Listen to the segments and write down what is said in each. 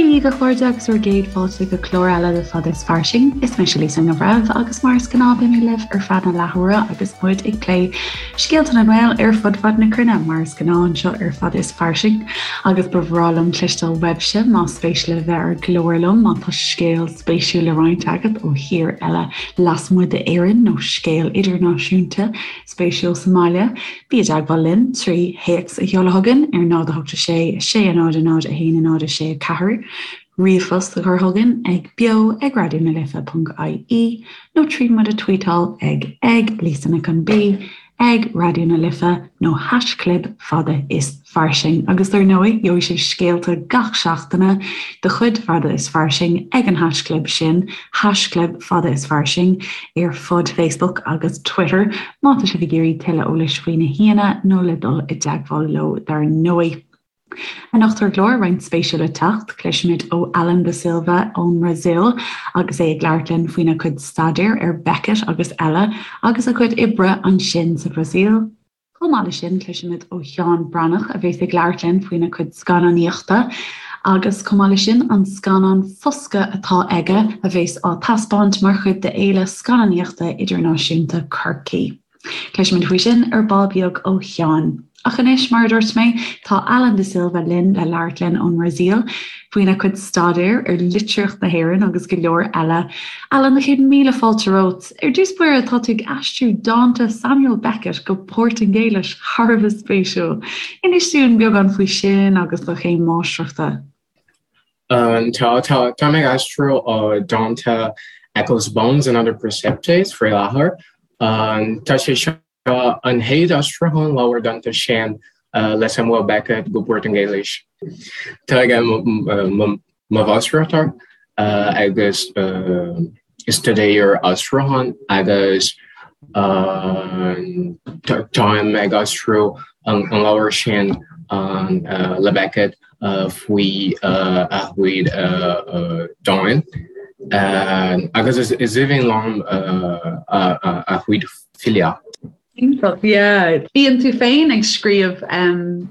Dia dhaoibh a chairde agus bhur gcéad fáilte go clár eile de Fada is Fairsing. Is mise Lisa Ní Bhreithimh agus mar is gnáth beidh mé libh ar feadh na leathuaire agus muid ag plé scéalta na nGael ar fud fad na cruinne mar is gnáth anseo ar Fada is Fairsing agus ba bhreá liom cloisteáil uaibhse más spéis libh bheith ar an gclár liom má tá scéal spéisiúil le roinnt agat ó thír eile lasmuigh d'Éirinn nó scéal idirnáisiúnta spéisiúil sa mbaile, bí i dteagmháil linn trí théacs a sheoladh chugainn ar 0 8 6 6 0 0 1 0 6 4, ríomhphost a chur chugainn ag beo ag raidió na life ponc ie nó trí muid a tweetáil ag ag Lisa Nic an B ag Raidió na Life nó haischlib fada is fairsing. Agus dar ndóigh, gheobhaidh sibh scéalta gach seachtaine de chuid Fada is Fairsing ag an haischlib sin, haischlib Fada is Fairsing, ar fud Facebook agus Twitter, má tá sibh ag iarraidh tuilleadh eolais faoi na haíonna nó le dul i dteagmháil leo dar ndóigh. Anocht ar an gclár, roinnt spéisiúil le teacht, cloisfimid ó Alan da Silva ón mBrasaíl agus é ag labhairt linn faoina chuid staidéir ar Beckett agus eile agus a chuid oibre ansin sa Bhrasaíl. Chomh maith leis sin, cloisfimid ó Sheán Breathnach a bheas ag labhairt linn faoina chuid scannánaíochta agus chomh maith leis sin, an scannán Foscadh atá aige a bheas á taispeáint mar chuid de Fhéile Scannánaíochta Idirnáisiúnta Chorcaí. Cloisfimid faoi sin ar ball beag ó Sheán. Ach anois, mar a dúirt mé, tá Alan da Silva linn le labhairt linn ón mBrasaíl faoina chuid staidéir ar litríocht na hÉireann agus go leor eile. Alan, 100,000 fáilte romhat. Ar dtús báire, tá tú ag aistriú dánta Samuel Beckett go Portaingéilis, thar a bheith spéisiúil. Inis dúinn beagán faoi sin agus do chéim máistreachta. Tá, tá, tá mé ag aistriú dánta Eccles Bones and Other Precipitates faoi láthair. Tá sé seo an chéad aistriúchán leabhar dánta sin le Samuel Beckett go Portaingéilis. Tá aige mo mháistreacht agus staidéar aistriúcháin agus táim ag aistriú an leabhar sin le Beckett faoi a chuid dán agus is aoibhinn liom a chuid filíocht. Iontach, yeah. Bíonn tú féin ag scríobh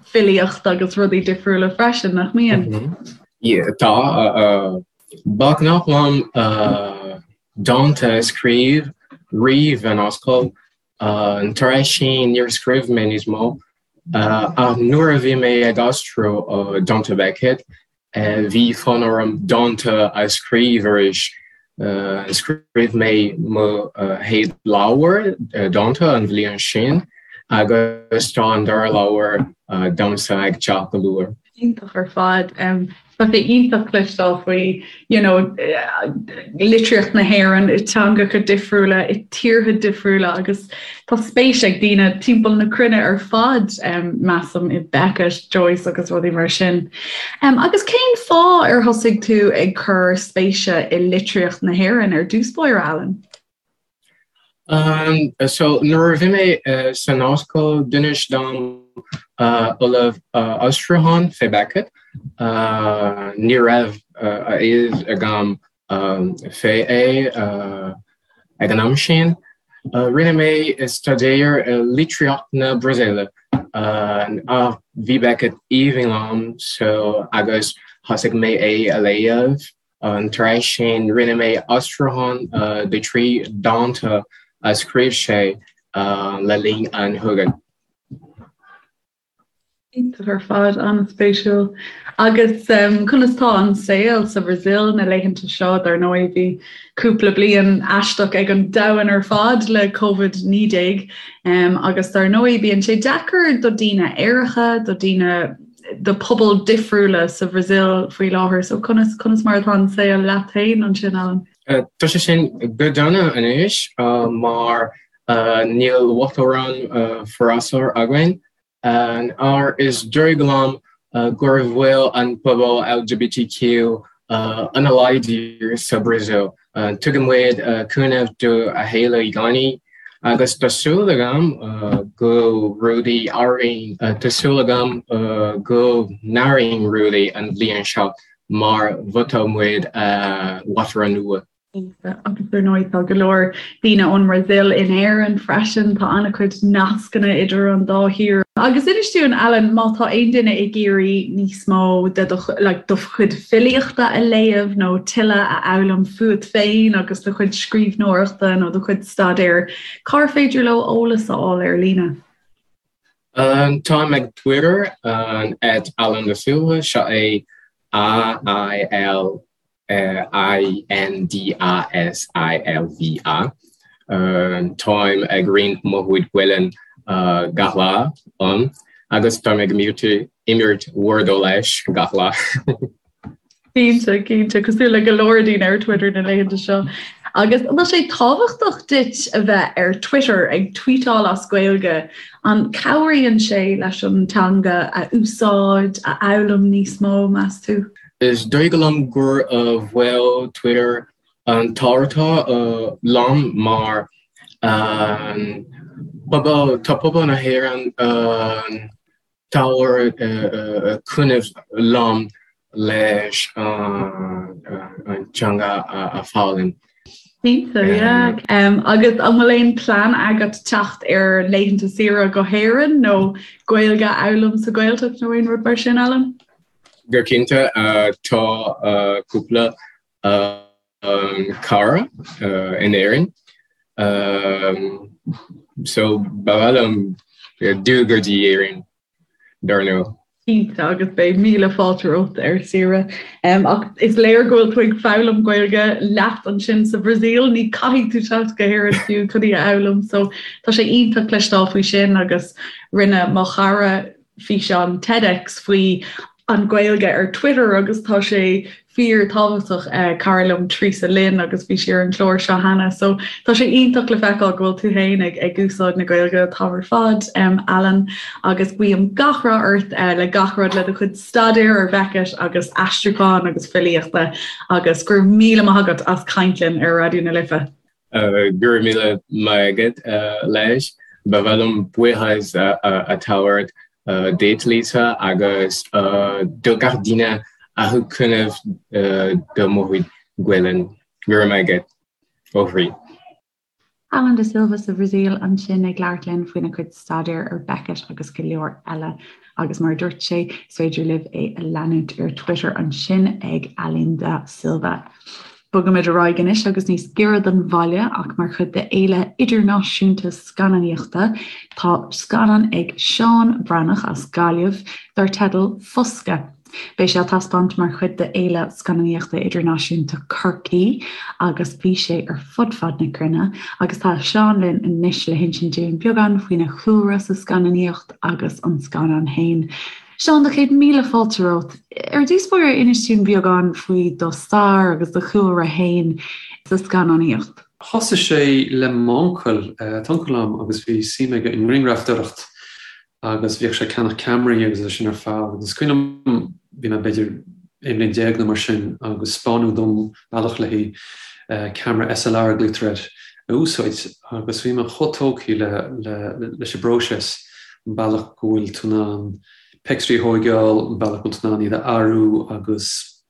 filíocht agus rudaí difriúla freisin, nach mbíonn? Yeah, tá. Ba ghnách liom dánta a scríobh riamh in ollscoil. Tar éis sin níor scríobh mé níos mó. Ach nuair a bhí mé ag aistriú dánta Beckett, Bhí fonn orm dánta a scríobh arís. Scríobh mé mo chéad leabhar dánta an bhliain sin agus tá an dara leabhar domsa ag teacht go luath. Iontach ar fad. Tá sé iontach cloisteáil faoi you know, litríocht na hÉireann i teangacha difriúla, i tíortha difriúla agus tá spéis ag daoine timpeall na cruinne ar fad, measaim, i Beckett, Joyce agus rudaí mar sin. Agus cén fáth ar thosaigh tú ag cur spéise i litríocht na hÉireann ar dtús báire, Alan? So nuair a bhí mé san ollscoil d'inis dom ollamh aistriúchán fé Beckett. Ní raibh a fhios agam fé é ag an am sin. Rinne mé staidéar i litríocht na Brasaíle ach bhí Beckett aoibhinn liom so agus thosaigh mé é a léamh. Tar éis sin rinne mé aistriúchán de thrí dánta a scríobh sé le linn an chogaidh. Iontach ar fad, an-spéisiúil. Agus conas tá an saol sa Bhrasaíl na laethanta seo? Dar ndóigh bhí cúpla bliain aisteach ag an domhan ar fad le Covid-19 agus dar ndóigh bíonn sé deacair do daoine aeracha, do daoine do pobail difriúla sa Bhrasaíl faoi láthair. So conas conas mar atá an saol leat féin ansin, Alan? Tá sé sin go dona anois mar níl uachtarán freasúra againn. Ach is dóigh liom gur bhfuil an pobal LGBTQ an-láidir sa Bhrasaíl. Tugann muid cúnamh do a chéile i gcónaí agus tá súil agam go rudaí athraíonn tá súil agam go n-athraíonn rudaí an bhliain seo mar vótáil muid uachtarán nua. Agus ar ndóigh tá go leor daoine ón mBrasaíl in Éirinn freisin, tá an-chuid nascanna idir an dá thír. Agus inis dúinn, Alan, má tá aon duine ag iarraidh níos mó de do, like, do chuid filíochta a léamh nó tuilleadh a fhoghlaim fút féin agus do chuid scríbhneoireachta nó do chuid staidéir, cár féidir leo eolas a fháil ar líne? Táim ag Twitter, at Alan da Silva, seo é A-I-L I-N-D-A-S-I-L-V-A. Táim ag roinnt mo chuid Gaelainn gach lá ann agus táim ag imirt Wordle leis gach lá. Cinnte, cinnte, cosúil le go leor daoine ar Twitter na laethanta seo. Agus an bhfuil sé tábhachtach duit a bheith ar Twitter ag tweetáil as Gaeilge? An cabhraíonn sé leis an teanga a úsáid, a fhoghlaim níos mó, meas tú? Is dóigh liom gur bhfuil Twitter an-tábhachtach liom mar pobal, tá pobal na hÉireann tabhair cúnamh liom leis an teanga a foghlaim. Cinnte, yeah. Agus an bhfuil aon plean agat teacht ar laethanta saoire go hÉirinn nó Gaeilge a fhoghlaim sa Ghaeltacht nó aon rud mar sin, Alan? Go cinnte, tá cúpla cara in Éirinn so ba mhaith liom dul go dtí Éirinn dar ndóigh. Cinnte, agus beidh míle fáilte romhat ar saoire. Ach is léir go bhfuil tú ag foghlaim Gaeilge leat ansin sa Bhrasaíl, ní caithfidh tú teacht go hÉirinn fiú chun í a fhoghlaim. So tá sé iontach cloisteáil faoi sin agus rinne mo chara físeán TEDx faoi an Ghaeilge ar Twitter agus tá sé fíor tábhachtach cara liom Teresa Lynn agus bhí sí ar an chlár seo cheana so tá sé iontach le feiceáil go bhfuil tú féin ag ag úsáid na Gaeilge an t-am ar fad um, Alan agus guím gach rath ort uh, le gach rud le do chuid staidéir ar Beckett agus aistriúchán agus filíochta agus go raibh míle maith agat as caint linn ar Raidió na Life. Go raibh míle maith agat leis. Ba mhaith liom buíochas a thabhairt duit Lisa agus do gach duine a thug cúnamh do mo chuid Gaelainn. Go raibh maith agat ó chroí. Alan da Silva sa Bhrasaíl ansin ag labhairt linn faoina chuid staidéir ar Beckett agus go leor eile. Agus mar a dúirt sé, is féidir libh é a leanúint ar Twitter ansin ag alindasilva. Bogaimid ar aghaidh anois agus níos giorra don bhaile ach mar chuid de Fhéile Idirnáisiúnta Scannánaíochta tá scannán ag Seán Breathnach as Gaillimh dar teideal Foscadh. Beidh sé á taispeáint mar chuid de Fhéile Scannánaíochta Idirnáisiúnta Chorcaí agus bhí sé ar fud fad na cruinne agus tá Seán linn anois le hinsint dúinn beagán faoina chúlra sa scannánaíocht agus an scannán féin. Seán, do chéad míle fáilte romhat. Ar dtús báire, inis dúinn beagán faoi do stair agus do chúlra féin sa scannánaíocht. Thosaigh sé le m'uncail, tá uncail agam agus bhí suim aige i ngrianghrafadóireacht agus bhíodh sé ag ceannach ceamaraí agus é sin ar fad agus is cuimhin liom, bhí mé b'fhéidir 11 bliain nó mar sin agus 'spáineadh dom bealach le haghaidh ceamara SLR a glaoitear air a úsáid agus bhí mé chomh tógtha leis an bpróiseas. an bealach go bhfuil tú in ann pictiúirí a thóigeáil, an bealach go bhfuil tú in ann iad a athrú agus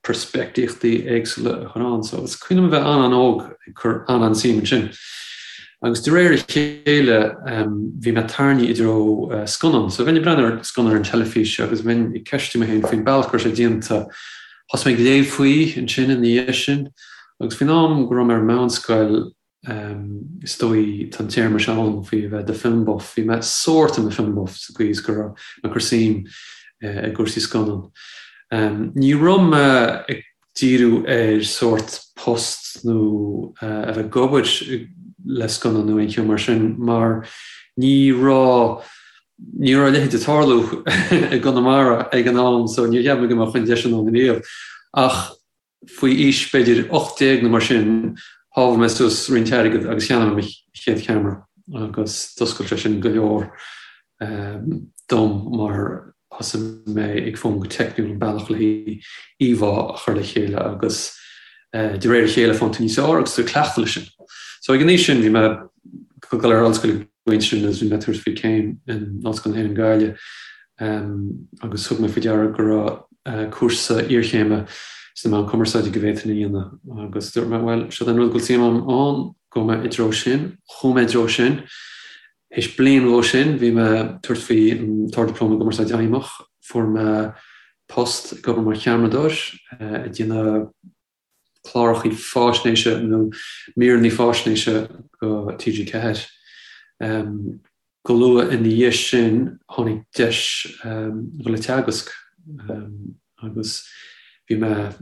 peirspictíochtaí éagsúla a chur ann. So is cuimhin liom a bheith an-an-óg ag cur an-an-suim ansin. Agus de réir a chéile bhí mé tarraingthe i dtreo scannán. So bheinn ag breathnú ar scannán ar an teilifís agus bheinn ag ceistiú mé féin faoin bealach go raibh sé déanta. Thosaigh mé ag léamh faoi ansin ina dhiaidh sin agus faoin am go raibh mé ar meánscoil, Is dóigh, tá an téarma seo ann faoi a bheith i do film buff. Bhí mé sórt i mo film buff sa gcaoi is go raibh mé ag cur suim i gcúrsaí scannán. Ní raibh mé ag díriú ar sórt post nó a bheith ag obair le scannán nó aon cheo mar sin mar ní raibh ní raibh a leithéid ag tarlú i gConamara ag an am so níor cheap mé go mbeadh an deis ann riamh. Ach Faoi aois b'fhéidir 18 nó mar sin, shábháil mé suas roinnt airgid agus cheannaigh mé mo chéad cheamara agus d'oscail sé sin go leor dom mar thosaigh mé ag foghlaim go teicniúil an bealach le haghaidh íomhá a chur le chéile agus de réir a chéile faigheann tú níos fearr agus tú ag cleachtadh leis sin. So ag an aois sin bhí mé ag dul ar ollscoil ag an bpointe sin agus bhí mé ag tabhairt faoi céim in Ollscoil na hÉireann Gaillimh agus thug mé faoi deara go raibh cúrsa iarchéime. sna meáin cumarsáide go bhféadfainn a dhéanamh agus dúirt mé, bhuel, seo an rud go bhfuil suim agam ann, gabhfaidh mé i dtreo sin. Chuaigh mé i dtreo sin. Théis bliain dhó sin bhí mé ag tabhairt faoi an tArd-Dioplóma i gCumarsáid Fheidhmeach. Fuair mé post ag obair mar cheamaradóir ag déanamh clárachaí fáisnéise nó míreanna fáisnéise go TG4. Go luath ina dhiaidh sin tháinig deis dhul ag teagasc agus bhí mé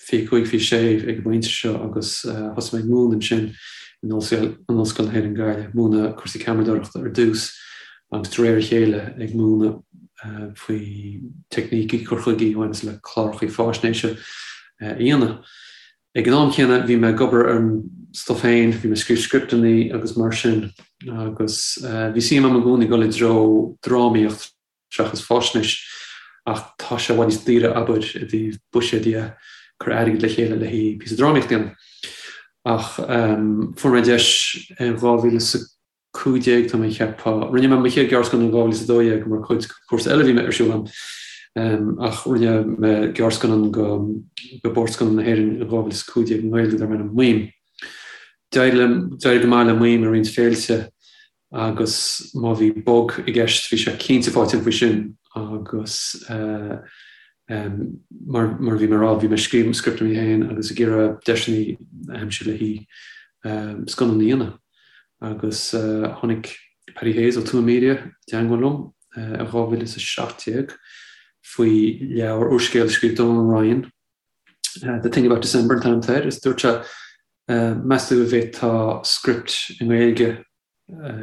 25, 26 ag an bpointe seo agus thosaigh mé ag múineadh ansin in Ollscoil na hÉireann Gaillimh, múineadh cúrsaí ceamaradóireachta ar dtús agus de réir a chéile ag múineadh faoi teicnící, cur chuigí a bhaineas le clárachaí fáisnéise a dhéanamh. Ag an am céanna bhí mé ag obair ar an stuif féin, bhí mé ag scríobh scripteanna agus mar sin agus bhí suim agam i gcónaí dul i dtreo drámaíocht seachas fáisnéis ach tá sé i bhfad níos daoire abair i dtaobh buiséad dhe, cur airgead le chéile le haghaidh píosa drámaíocht a dhéanamh. Ach fuair mé deis in 2015, tá mé ag ceapadh. Rinne mé mo chéad ghearrscannán in 2012 mar chuid de chúrsa eile a bhí mé ar siúl agam ach rinne mé gearrscannán go go Bord Scannán na hÉireann in 2015 i nGaeilge darb ainm Maím. D'éirigh go maith le Maím i roinnt féilte agus má bhí bug i gceist bhí sé cinnte faighte faoi sin agus mar mar a bhí mé ag rá bhí mé ag scríobh scripteanna féin agus ag iarraidh deiseanna a aimsiú le haghaidh scannán a dhéanamh. Agus tháinig Paddy Hayes ó Tuama Media i dteangmháil liom i 2017 faoi leabhar úrscéal a scríobh Donal Ryan, The Thing About December an t-ainm atá air, is dúirt sé, meas tú an bhféadfá script i nGaeilge,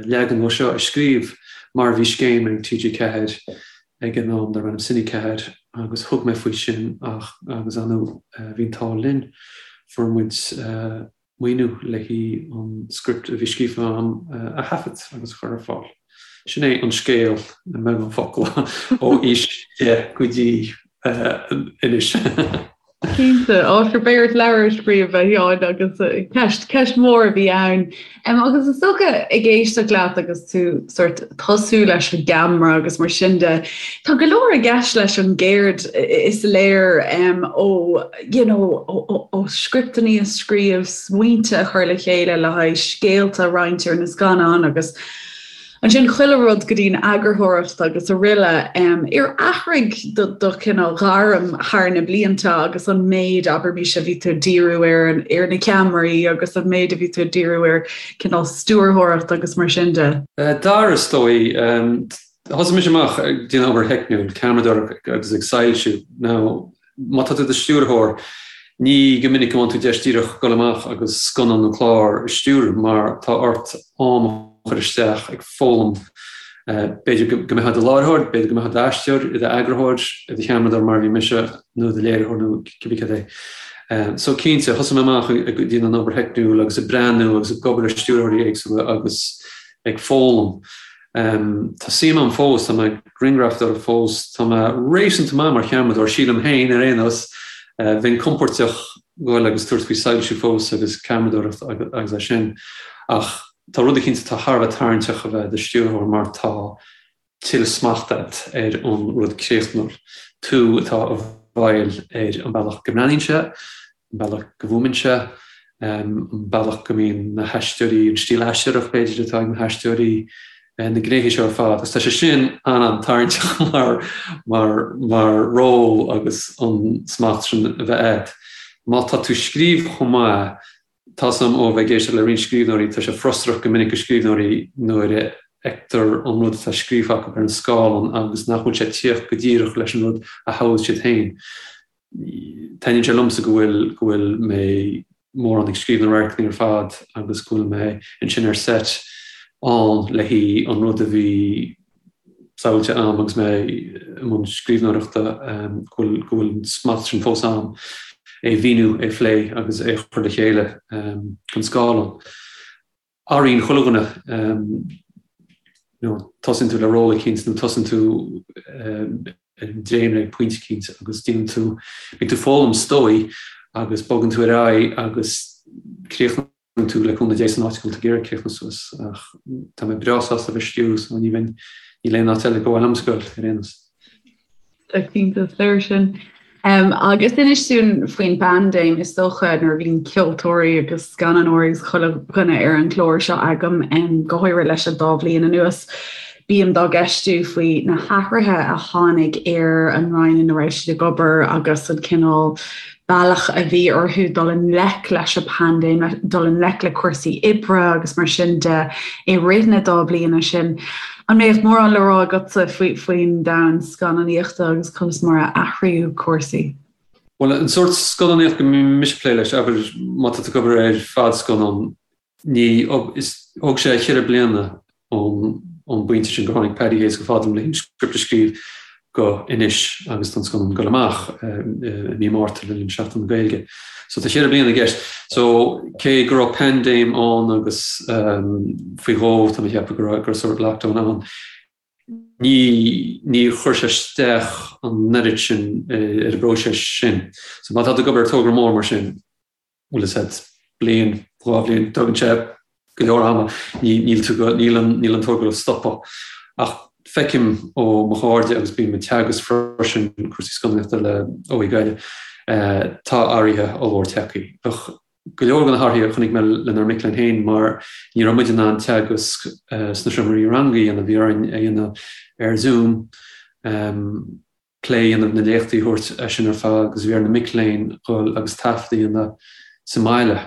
leagan dhó seo, a scríobh mar bhí scéim ag TG4 ag an am darb ainm Cine 4 agus thug mé faoi sin ach agus ar ndóigh bhí an t-ádh linn, fuair muid maoiniú le haghaidh an script a bhí scríofa agam a thaifead agus a chur ar fáil. Sin é an scéal i mbeagán focal ó aois 10 go dtí anois. Cinnte, á sure beidh ort leabhar a scríobh a Sheáin agus ceist, ceist mhór a bhí ann. Agus is dócha ag éisteacht leat agus tú sort tosú leis an gceamara agus mar sin de, tá go leor i gceist leis an gceird is léir ó you know, ó scripteanna a scríobh, smaointe a chur le chéile le haghaidh scéalta a roinnt ar na scannáin agus ansin chuile rud go dtí'n eagarthóireacht agus araile. Ar athraigh do do chineál gairm thar na blianta agus an méid, abraimis, a bhí tú ag díriú ar ar na ceamaraí agus an méid a bhí tú ag díriú ar cineál stiúrthóireacht agus mar sin de? D'athraigh, is dóigh. Thosaigh mise amach ag déanamh obair theicniúil, ceamaradóireacht agus ag soilsiú. Now, Má tá tú i do stiúrthóir, ní go minic a bhfaigheann tú deis díreach dul amach agus scannán nó clár a stiúradh mar tá ort am a chur isteach ag foghlaim. B'fhéidir go mbeifeá i do láithreoir, b'fhéidir go mbeifeá i d'aisteoir, i d'eagarthóir, i do cheamaradóir mar a bhí mise, nó i do léiritheoir nó cibé cad é. So cinnte, thosaigh mé amach ag déanamh an obair theicniúil agus ag breathnú agus ag obair le stiúrthóirí éagsúla agus ag foghlaim. Tá suim agam fós, tá mé ag grianghrafadóireacht fós, tá mé réasúnta maith mar cheamaradóir, sílim féin ar aon nós. Bheinn compordach goil agus tabhairt faoi soilsiú fós agus ceamaradóireacht agus é sin. Ach tá rud eicínt atá thar a bheith tarraingteach a bheith i do stiúrthóir mar tá tuilleadh smachta agat ar an rud críochnúil. Tú atá i bhfeighil ar an bealach go mbreathnaíonn sé, an bealach go bhfuaimíonn sé, an bealach go mbíonn na haisteoirí, an stíl aisteoireacht b'fhéidir atá ag na haisteoirí, na gnéithe seo ar fad. Agus tá sé sin an-an-tarraingteach mar, mar, mar ról agus an smacht sin a bheith agat. Má tá tú ag scríobh chomh maith, tá 's agam ó bheith ag éisteacht le roinnt scríbhneoirí, tá sé frustrach go minic do scríbhneoirí nuair a fheictear an rud atá scríofa acu ar an scáileán agus nach bhfuil sé ag tíocht go díreach leis an rud a shamhlaigh siad féin. Taitníonn sé liomsa go bhfuil, go bhfuil mé mórán ag scríobh na radharcanna ar fad agus go bhfuil mé ansin ar set ann le haghaidh an rud a bhí samhlaithe a'm agus mé i mbun scríbhneoireachta, go bhfuil, go bhfuil an smacht sin fós a'm, é a mhíniú, é a phlé agus é a chur le chéile don scáileán. Athraíonn chuile dhuine, you know, tosaíonn tú le ról eicínt nó tosaíonn tú ar an dréimire ag pointe eicínt agus déanann tú, bíonn tú ag foghlaim is dóigh agus bogann tú ar aghaidh agus críochnaíonn tú le cúnamh Dé san áit go bhfuil tú ag iarraidh críochnú suas ach tá mé breá sásta a bheith ag stiúradh so ní bheinn, níl aon áit eile gur mhaith liomsa goil ar aon nós. Tá cinnte, is léir sin. Agus inis dúinn faoin bpaindéim, is dócha nuair a bhíonn ceoltóirí agus scannánóirí agus chuile dhuine ar an gclár seo agam, go háirithe leis an dá bhliain anuas, bím dá gceistiú faoi na hathruithe a tháinig ar an roinn ina raibh siad ag obair agus an cineál bealach a bhí orthu dul i ngleic leis an bpaindéim, dul i ngleic le cúrsaí oibre agus mar sin de i rith na dá bliana sin. An mbeadh mórán le rá agatsa faoin domhan scannánaíochta agus conas mar a athraíodh cúrsaí? Bhuel, an sórt scannánaíocht go mbím mise ag plé leis, abair má tá tú ag obair ar fadscannán, ní, is, thóg sé cheithre bliana ón, ón bpointe sin gur tháinig Paddy Hayes chomh fada liom le an script a scríobh go anois agus tá an scannán ag dul amach i mí Márta le linn Seachtain na Gaeilge. So tá cheithre bliana i gceist. So cé go raibh paindéim ann agus faoi dhó tá mé ag ceapadh go raibh, go raibh sort lockdown ann, ní, níor chuir sé isteach an oiread sin ar an bpróiseas sin. So má tá tú ag obair ar togra mór mar sin, bhfuil a fhios agat, bliain, 2 bhliain, tógann sé go leor ama, níl tú go, níl an, níl an togra ag stopadh. Ach feicim ó mo chairde agus bím ag teagasc freisin cúrsaí scannánaíochta le OÉ Gaillimh, tá athruithe ollmhór tagtha. Bheadh go leor de na hathruithe a chonaic mé lenár mic léinn féin mar ní raibh muid in ann teagasc sna seomraí ranga a dhéanamh, bhí orainn a dhéanamh ar Zoom. plé a dhéanamh, na léachtaí a thabhairt é sin ar fad agus bhí ar na mic léinn dhul agus taifead a dhéanamh sa mbaile.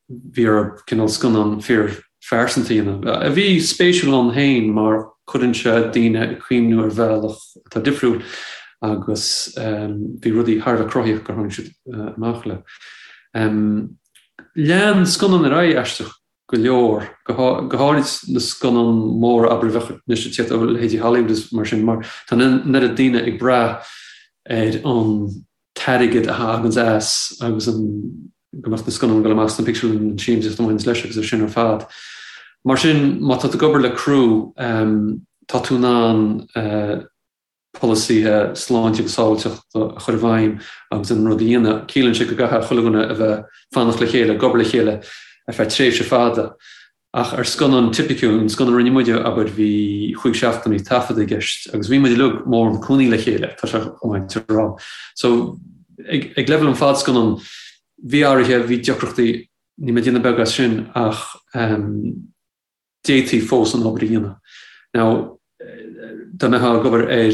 Bhí orthu cineál scannán fíorphearsanta a dhéanamh, a bhí spéisiúil ann féin mar cuireann sé daoine ag cuimhniú ar bhealach atá difriúil agus bhí rudaí thar a bheith cruthaíoch gur tháinig siad amach le. Lean scannán ar aghaidh aisteach go leor, go háirid na scannáin mhóra, abair, a bheadh anois ag tíocht ó leithéidí Hollywood is mar sin, mar tá an oiread daoine ag brath ar an t-airgead a thaganns as agus an go mbeadh na scannáin ag dul amach sna pictiúrlanna, an siamsaíocht a bhaineanns leis agus é sin ar fad. Mar sin, má tá tú ag obair le criú, tá tú in ann polasaithe sláinte agus sábháilteachta a chur i bhfeidhm agus an rud a dhéanamh. Ciallaíonn sé go gcaithfidh chuile dhuine a bheith fanacht le chéile, ag obair le chéile ar feadh tréimhse fada. Ach ar scannán tipiciúil, an scannán a rinne muide, abair, bhí chúig seachtainí taifeadta i gceist agus bhí muid uilig mórán cónaí le chéile, tá sé chomh maith a rá. So, ag leibhéal an fadscannán, bhí athruithe, bhí deacrachtaí, níl mé ag déanamh beag as sin ach, d'fhéadfaí fós an obair a dhéanamh. Now, dá mbeifeá ag obair ar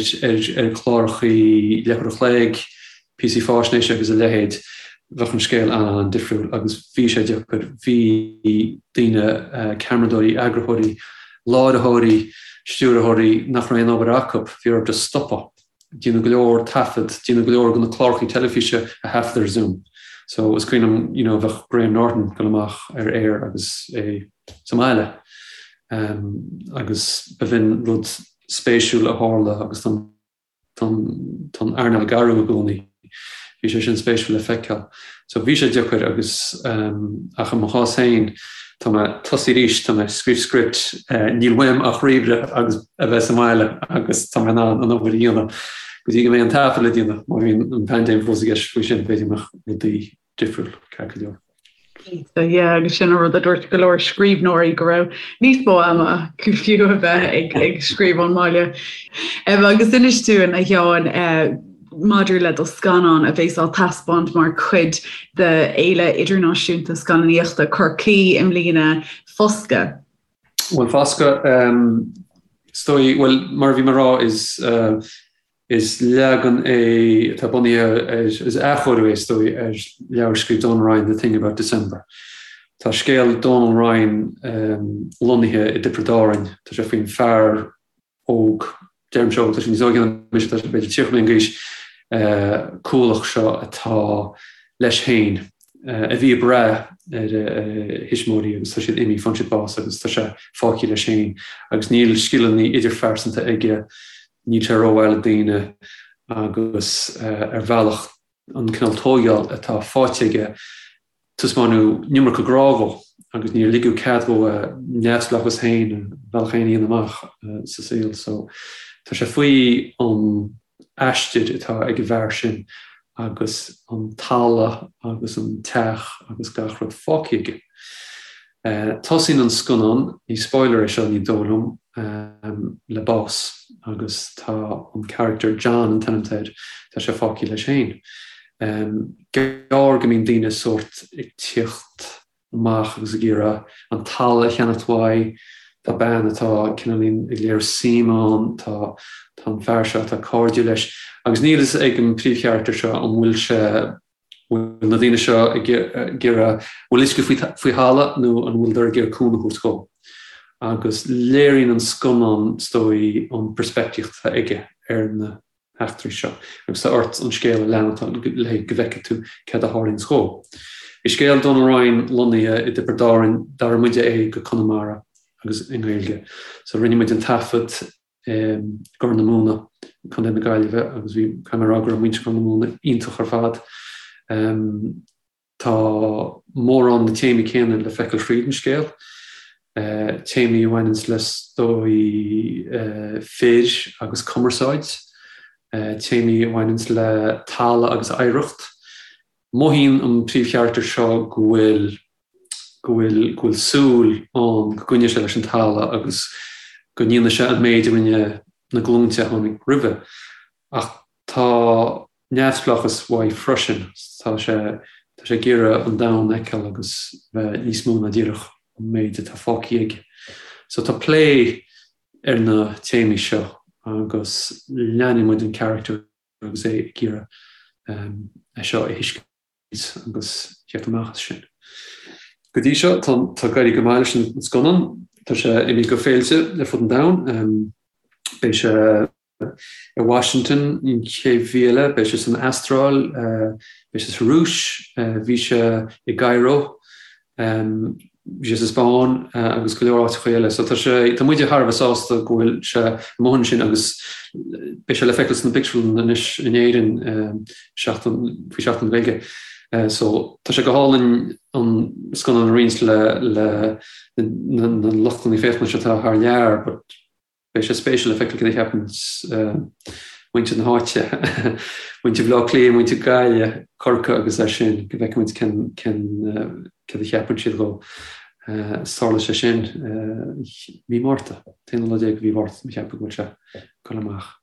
ar chlárachaí leathuair a chloig, píosaí fáisnéise agus a leithéid, bheadh an scéal an-an-difriúil agus bhí sé deacair. Bhí daoine, ceamaradóirí, eagarthóirí, láithreoirí, stiúrthóirí nach raibh aon obair acu, bhí orthu just stopadh. Déanadh go leor taifead, déanadh go leor de na clárachaí teilifíse a thaifead ar Zoom. So is cuimhin liom, you know, bheadh Graham Norton ag dul amach ar aer agus é sa mbaile. Agus b'in rud spéisiúil a tharla agus tá an earnáil ag athrú i gcónaí. Bhí sé sin spéisiúil le feiceáil. So bhí sé deacair agus ach i mo chás féin tá mé tosaithe arís, tá mé ag scríobh script, níl uaim ach ríomhaire agus a bheith sa mbaile agus tá mé in ann an obair a dhéanamh go dtí go mbeidh an taifead le déanamh. Má bhíonn an paindéim fós i gceist faoi sin b'fhéidir go mbeadh rudaí difriúil ceart go leor. Cinnte, yeah, agus sin an rud a dúirt go leor scríbhneoirí go raibh níos mó ama acu fiú a bheith ag, ag scríobh ón mbaile. Um, agus inis dúinn a Sheáin uh, maidir le do scannán a bheas á taispeáint mar chuid de Fhéile Idirnáisiúnta Scannánaíochta Chorcaí i mbliana, Foscadh. Bhuel, Foscadh, um, is dóigh, bhuel, mar a bhí mé ag rá, is uh, Is leagan é atá bunaithe ar, is athchóiriú é is dóigh, ar leabhar a scríobh Donal Ryan, The Thing About December. Tá scéal Donal Ryan lonnaithe i dTiobraid Árann. Tá sé faoin fear óg, deirimse óg, tá sé níos óige ná mise, tá sé b'fhéidir 30 bliain d'aois, cúlach seo atá leis féin, a bhí ag brath ar a thuismitheoirí agus tá siad imithe, fuair siad bás agus tá sé fágtha leis féin agus níl scileanna idirphearsanta aige, Níl sé rómhaith le daoine agus ar bhealach an cineál tóigeáil atá faighte aige taispeánadh an iomarca grá dhó agus níor ligeadh cead dhó a neamhspleáchas féin, a bhealach féin a dhéanamh amach sa saol. So tá sé faoi an aistir atá ag an bhfear sin agus an talamh agus an teach agus gach rud fágtha aige. Tosaíonn an scannán, ní spoiler é seo ní dóigh liom, le bás agus tá an charachtar, John an t-ainm atá air, tá sé fágtha leis féin. Gearr go mbíonn daoine sórt ag tíocht amach agus ag iarraidh an talamh a cheannacht uaidh, tá bean atá cineáilín ag léiriú suim ann, tá tá an fear seo atá cairdiúil leis agus níl fhios ag an príomhcharachtar seo an bhfuil sé bhfuil na daoine seo ag iarraidh, bhfuil uisce faoi thalamh nó an bhfuileadar ag iarraidh cúnamh a thabhairt dhó. Agus léiríonn an scannán, is dóigh, an peirspictíocht atá aige ar na heachtraí seo. Agus tá ort an scéal a leanacht le go bhfeicfidh tú céard a tharlaíonns dhó. Bhí scéal Donal Ryan lonnaithe i dTiobraid Árann, d'athraigh muide é go Conamara agus i nGaeilge. So rinne muid an taifead i gCorr na Móna, Contae na Gaillimhe, agus bhí, caithfidh mé a rá go raibh muintir Chorr na Móna iontach ar fad. Tá mórán na téamaí céanna le feiceáil thríd an scéal, téamaí a bhaineanns le is dóigh fir agus cumarsáid, téamaí a bhaineanns le talamh agus oidhreacht. Mothaíonn an príomhcharachtar seo go bhfuil go bhfuil go bhfuil súil ann go gcoinneoidh sé leis an talamh agus go ndéanfaidh sé an méid a rinne na glúinte a tháinig roimhe. Ach tá neamhspleáchas uaidh freisin, tá sé tá sé ag iarraidh an domhan a fheiceáil agus bheith níos mó ná díreach an méid atá fágtha aige. So tá plé ar na téamaí seo agus leanfaidh muid an charachtar agus é ag iarraidh é seo a thuiscint agus theacht amach as sin. Go dtí seo, tá ag éirí go maith leis an scannán. Tá sé imithe go féilte ar fud an domhain. Beidh sé i Washington an chéad mhí eile, beidh sé san Astráil, beidh sé sa Rúis, bhí sé i gCairo. Bhí sé sa Spáinn agus go leor áiteacha eile. So tá sé, tá muide thar a bheith sásta go bhfuil sé amuigh ansin agus beidh sé le feiceáil sna pictiúrlanna anois in Éirinn seachtain, faoi Seachtain na Gaeilge. So tá sé go hálainn an scannán a roinnt le le na na luchtanna féachana seo atá thar lear but Beidh sé spéisiúil le feiceáil cad a cheapann muintir na háite, muintir Bhaile Átha Cliath, muintir Gaillimhe, Corcaigh agus é sin, go bhfeicfidh muid cén, cén, céard a cheapann siad dhó. Tarlóidh sé sin mí Márta, t-aonú lá déag de mhí Mhárta, mo cheapadh go bhfuil sé ag dul amach.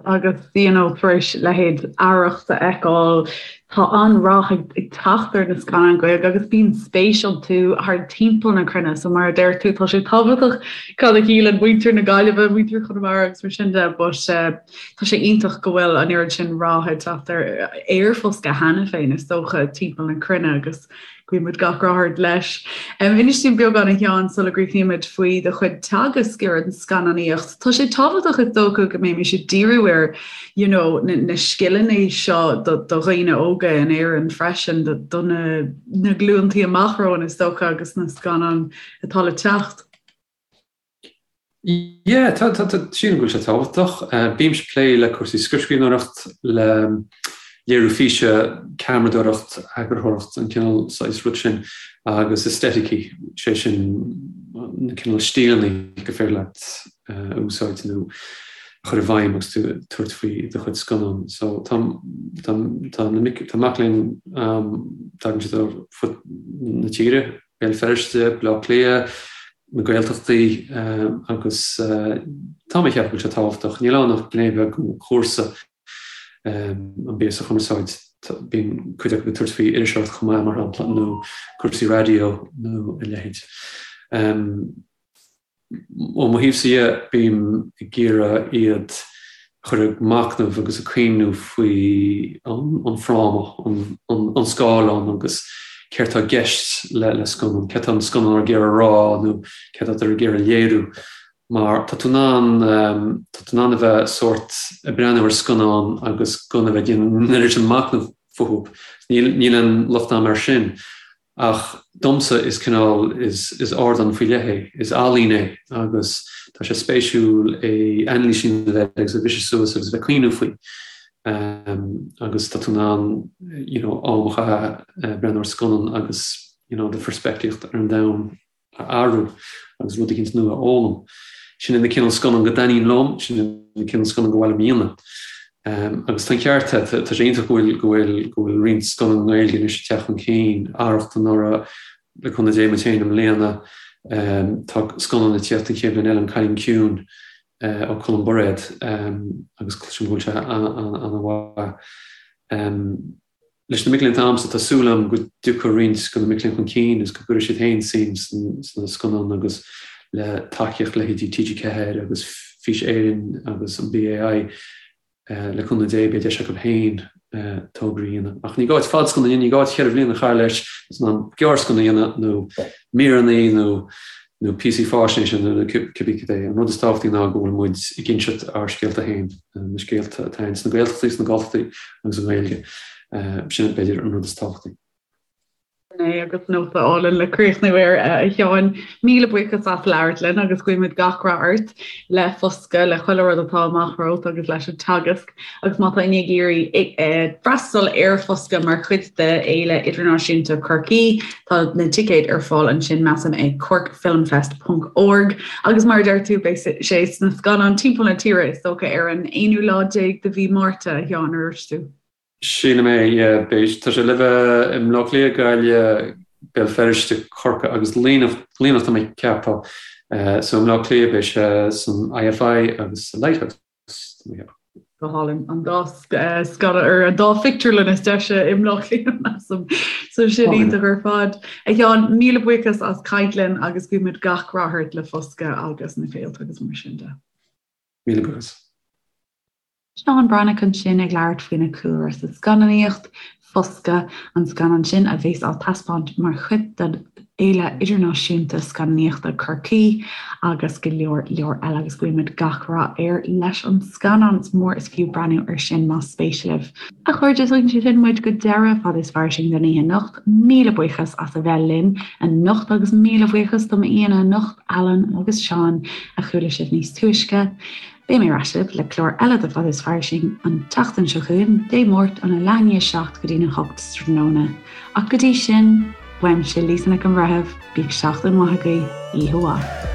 Agus you know tar éis leithéid Arracht a fheiceáil, tá an-rath ag teacht ar na scannáin Ghaeilge agus bíonn spéis iontu thar timpeall na cruinne. So mar a deir tú, tá sé tábhachtach cad a shíleann muintir na Gaillimhe, muintir Chonamara agus mar sin de, but tá sé iontach go bhfuil an oiread sin rath ag teacht ar ar Foscadh cheana féin is dócha timpeall na cruinne agus Guíonn muid gach rath ort leis. Inis dúinn beagán a Sheáin sula gcríochnaímid faoi do chuid teagasc ar an scannánaíocht. Tá sé tábhachtach is dócha go mbeimis ag díriú ar you know, na, na scileanna seo do, do dhaoine óga in Éirinn freisin, do, do na, na glúntaí amach romhainn is dócha agus na scannáin atá le teacht. Yeah, tá, tá, tá, sílim go bhfuil sé tábhachtach. Bímse ag plé le cúrsaí scriptscríbhneoireacht, le léiriú físe, ceamaradóireacht, eagarthóireacht, an cineál saghas rud sin, agus aestheticí, sé sin na cineál stíleanna gur féidir leat a úsáid nó a chur i bhfeidhm agus tú ag tabhairt faoi do chuid scannán. So tá, tá, tá na mic, tá mac léinn, tagann siad ó fud na tíre, Béal Feirste, Baile Átha Cliath, na Gaeltachtaí agus tá mé ag ceapadh go bhfuil sé tábhachtach. Níl ann ach gné bheag den chúrsa, an píosa cumarsáid. Bíonn cuid acu ag tabhairt faoi iriseoireacht chomh maith, mar shampla, nó cúrsaí raidió nó a leithéid. Ó mo thaobhsa dhe, bím ag iarraidh iad a chur ag machnamh agus ag cuimhniú faoi an fráma, an scáileán agus céard tá i gceist le scannán, céard tá an scannán ag iarraidh a rá nó céard atá ag iarraidh a léiriú. Mar tá tú in ann, tá tú in ann a bheith sórt ag breathnú ar scannán agus gan a bheith ag déanamh an oiread sin machnamh fúthu. Níl aon locht a'm air sin. Ach domsa is cineál, is ardán faoi leith é, is ealaín é agus tá sé spéisiúil é anailís a dhéanamh air agus a bhriseadh suas agus a bheith ag cuimhniú faoi. Agus tá tú in ann you know am a chaitheamh ag breathnú ar scannán agus you know do pheirspictíocht ar an domhan a athrú agus rud eicínt nua a fhoghlaim. Sin é na cineál scannán go dtaitníonn liom, sin é na cineál scannán go mba mhaith liom a dhéanamh. Agus tá an ceart agat, tá sé iontach go bhfuil, go bhfuil, go bhfuil roinnt scannán Gaeilge anois ag teacht chun cinn, Arracht anuraidh, le cúnamh Dé muid féin i mbliana. Tá scannán ag tíocht an chéad bhliain eile, An Cailín Ciúin ó Colm Bairéad agus cloisim go bhfuil sé an-mhaith. Leis na mic léinn atá agamsa, tá súil agam go dtiocfaidh roinnt de na mic léinn chun cinn agus go gcuirfidh siad féin suim sna scannáin agus le tacaíocht leithéidí TG4 agus Fís Éireann agus an BAI, le cúnamh Dé, beidh deis acu féin tograí a dhéanamh. Ach ní gá duit fadscannán a dhéanamh, ní gá duit cheithre bhliana a chaitheamh leis, is in ann gearrscannán a dhéanamh nó míreanna nó nó píosaí faisnéise nó cibé cad é. An rud is tábhachtaí ná go bhfuil muid ag inseacht ár scéalta féin, na scéalta atá ann sna Gaeltachtaí, sna Galltachtaí agus i nGaeilge. Sin b'fhéidir an rud is tábhachtaí. Sin é agus nóta álainn le críochnú air, a Sheáin. Míle buíochas as labhairt linn agus guímid gach rath ort le Foscadh, le chuile rud atá amach romhat agus leis an teagasc. Agus má tá éinne ag iarraidh freastal ar Foscadh mar chuid de Fhéile Idirnáisiúnta Chorcaí, tá na ticéid ar fáil ansin, measaim, ag corkfilmfest ponc org. Agus mar a deir tú, beidh sé sna scannáin timpeall na tíre, is dócha, ar an aonú lá déag de mhí Márta, a Sheáin, ar dúirt tú? Sílim é, yeah. Beidh, tá sé le bheith i mBleá Cliath, Gaillimh, Béal Feirste, Corcaigh agus Luimneach, Luimneach tá mé ag ceapadh. So i mBleá Cliath beidh sé san IFI agus sa Lighthouse. Go hálainn. An dá scannán ar an dá phictiúrlann is deise i mBleá Cliath, measaim. So sin iontach ar fad. A Sheáin, míle buíochas as caint linn agus guímid gach rath ort le Foscadh agus na féilte agus mar sin de. Míle buíochas. Seán Breathnach ansin ag labhairt faoina chúlra sa scannánaíocht, Foscadh, an scannán sin a bheas á taispeáint mar chuid den Fhéile Idirnáisiúnta Scannánaíochta Chorcaí agus go leor leor eile agus guímid gach rath air leis an scannán. Is mór is fiú breathnú air sin más spéis libh. A chairde, tugann sé sin muid go deireadh Fada is Fairsing don oíche anocht. Míle buíochas as a bheith linn anocht agus míle buíochas do m'aíonna anocht, Alan agus Seán, a chuala sibh níos túisce. Beidh mé ar ais libh le clár eile de Fada is Fairsing an tseachtain seo chugainn, Dé Máirt óna leath i ndiaidh 7 go dtína 8 sa tráthnóna. Ach go dtí sin, uaimse Lisa Nic an Bhreithimh, bíodh seachtain mhaith agaibh, oíche mhaith.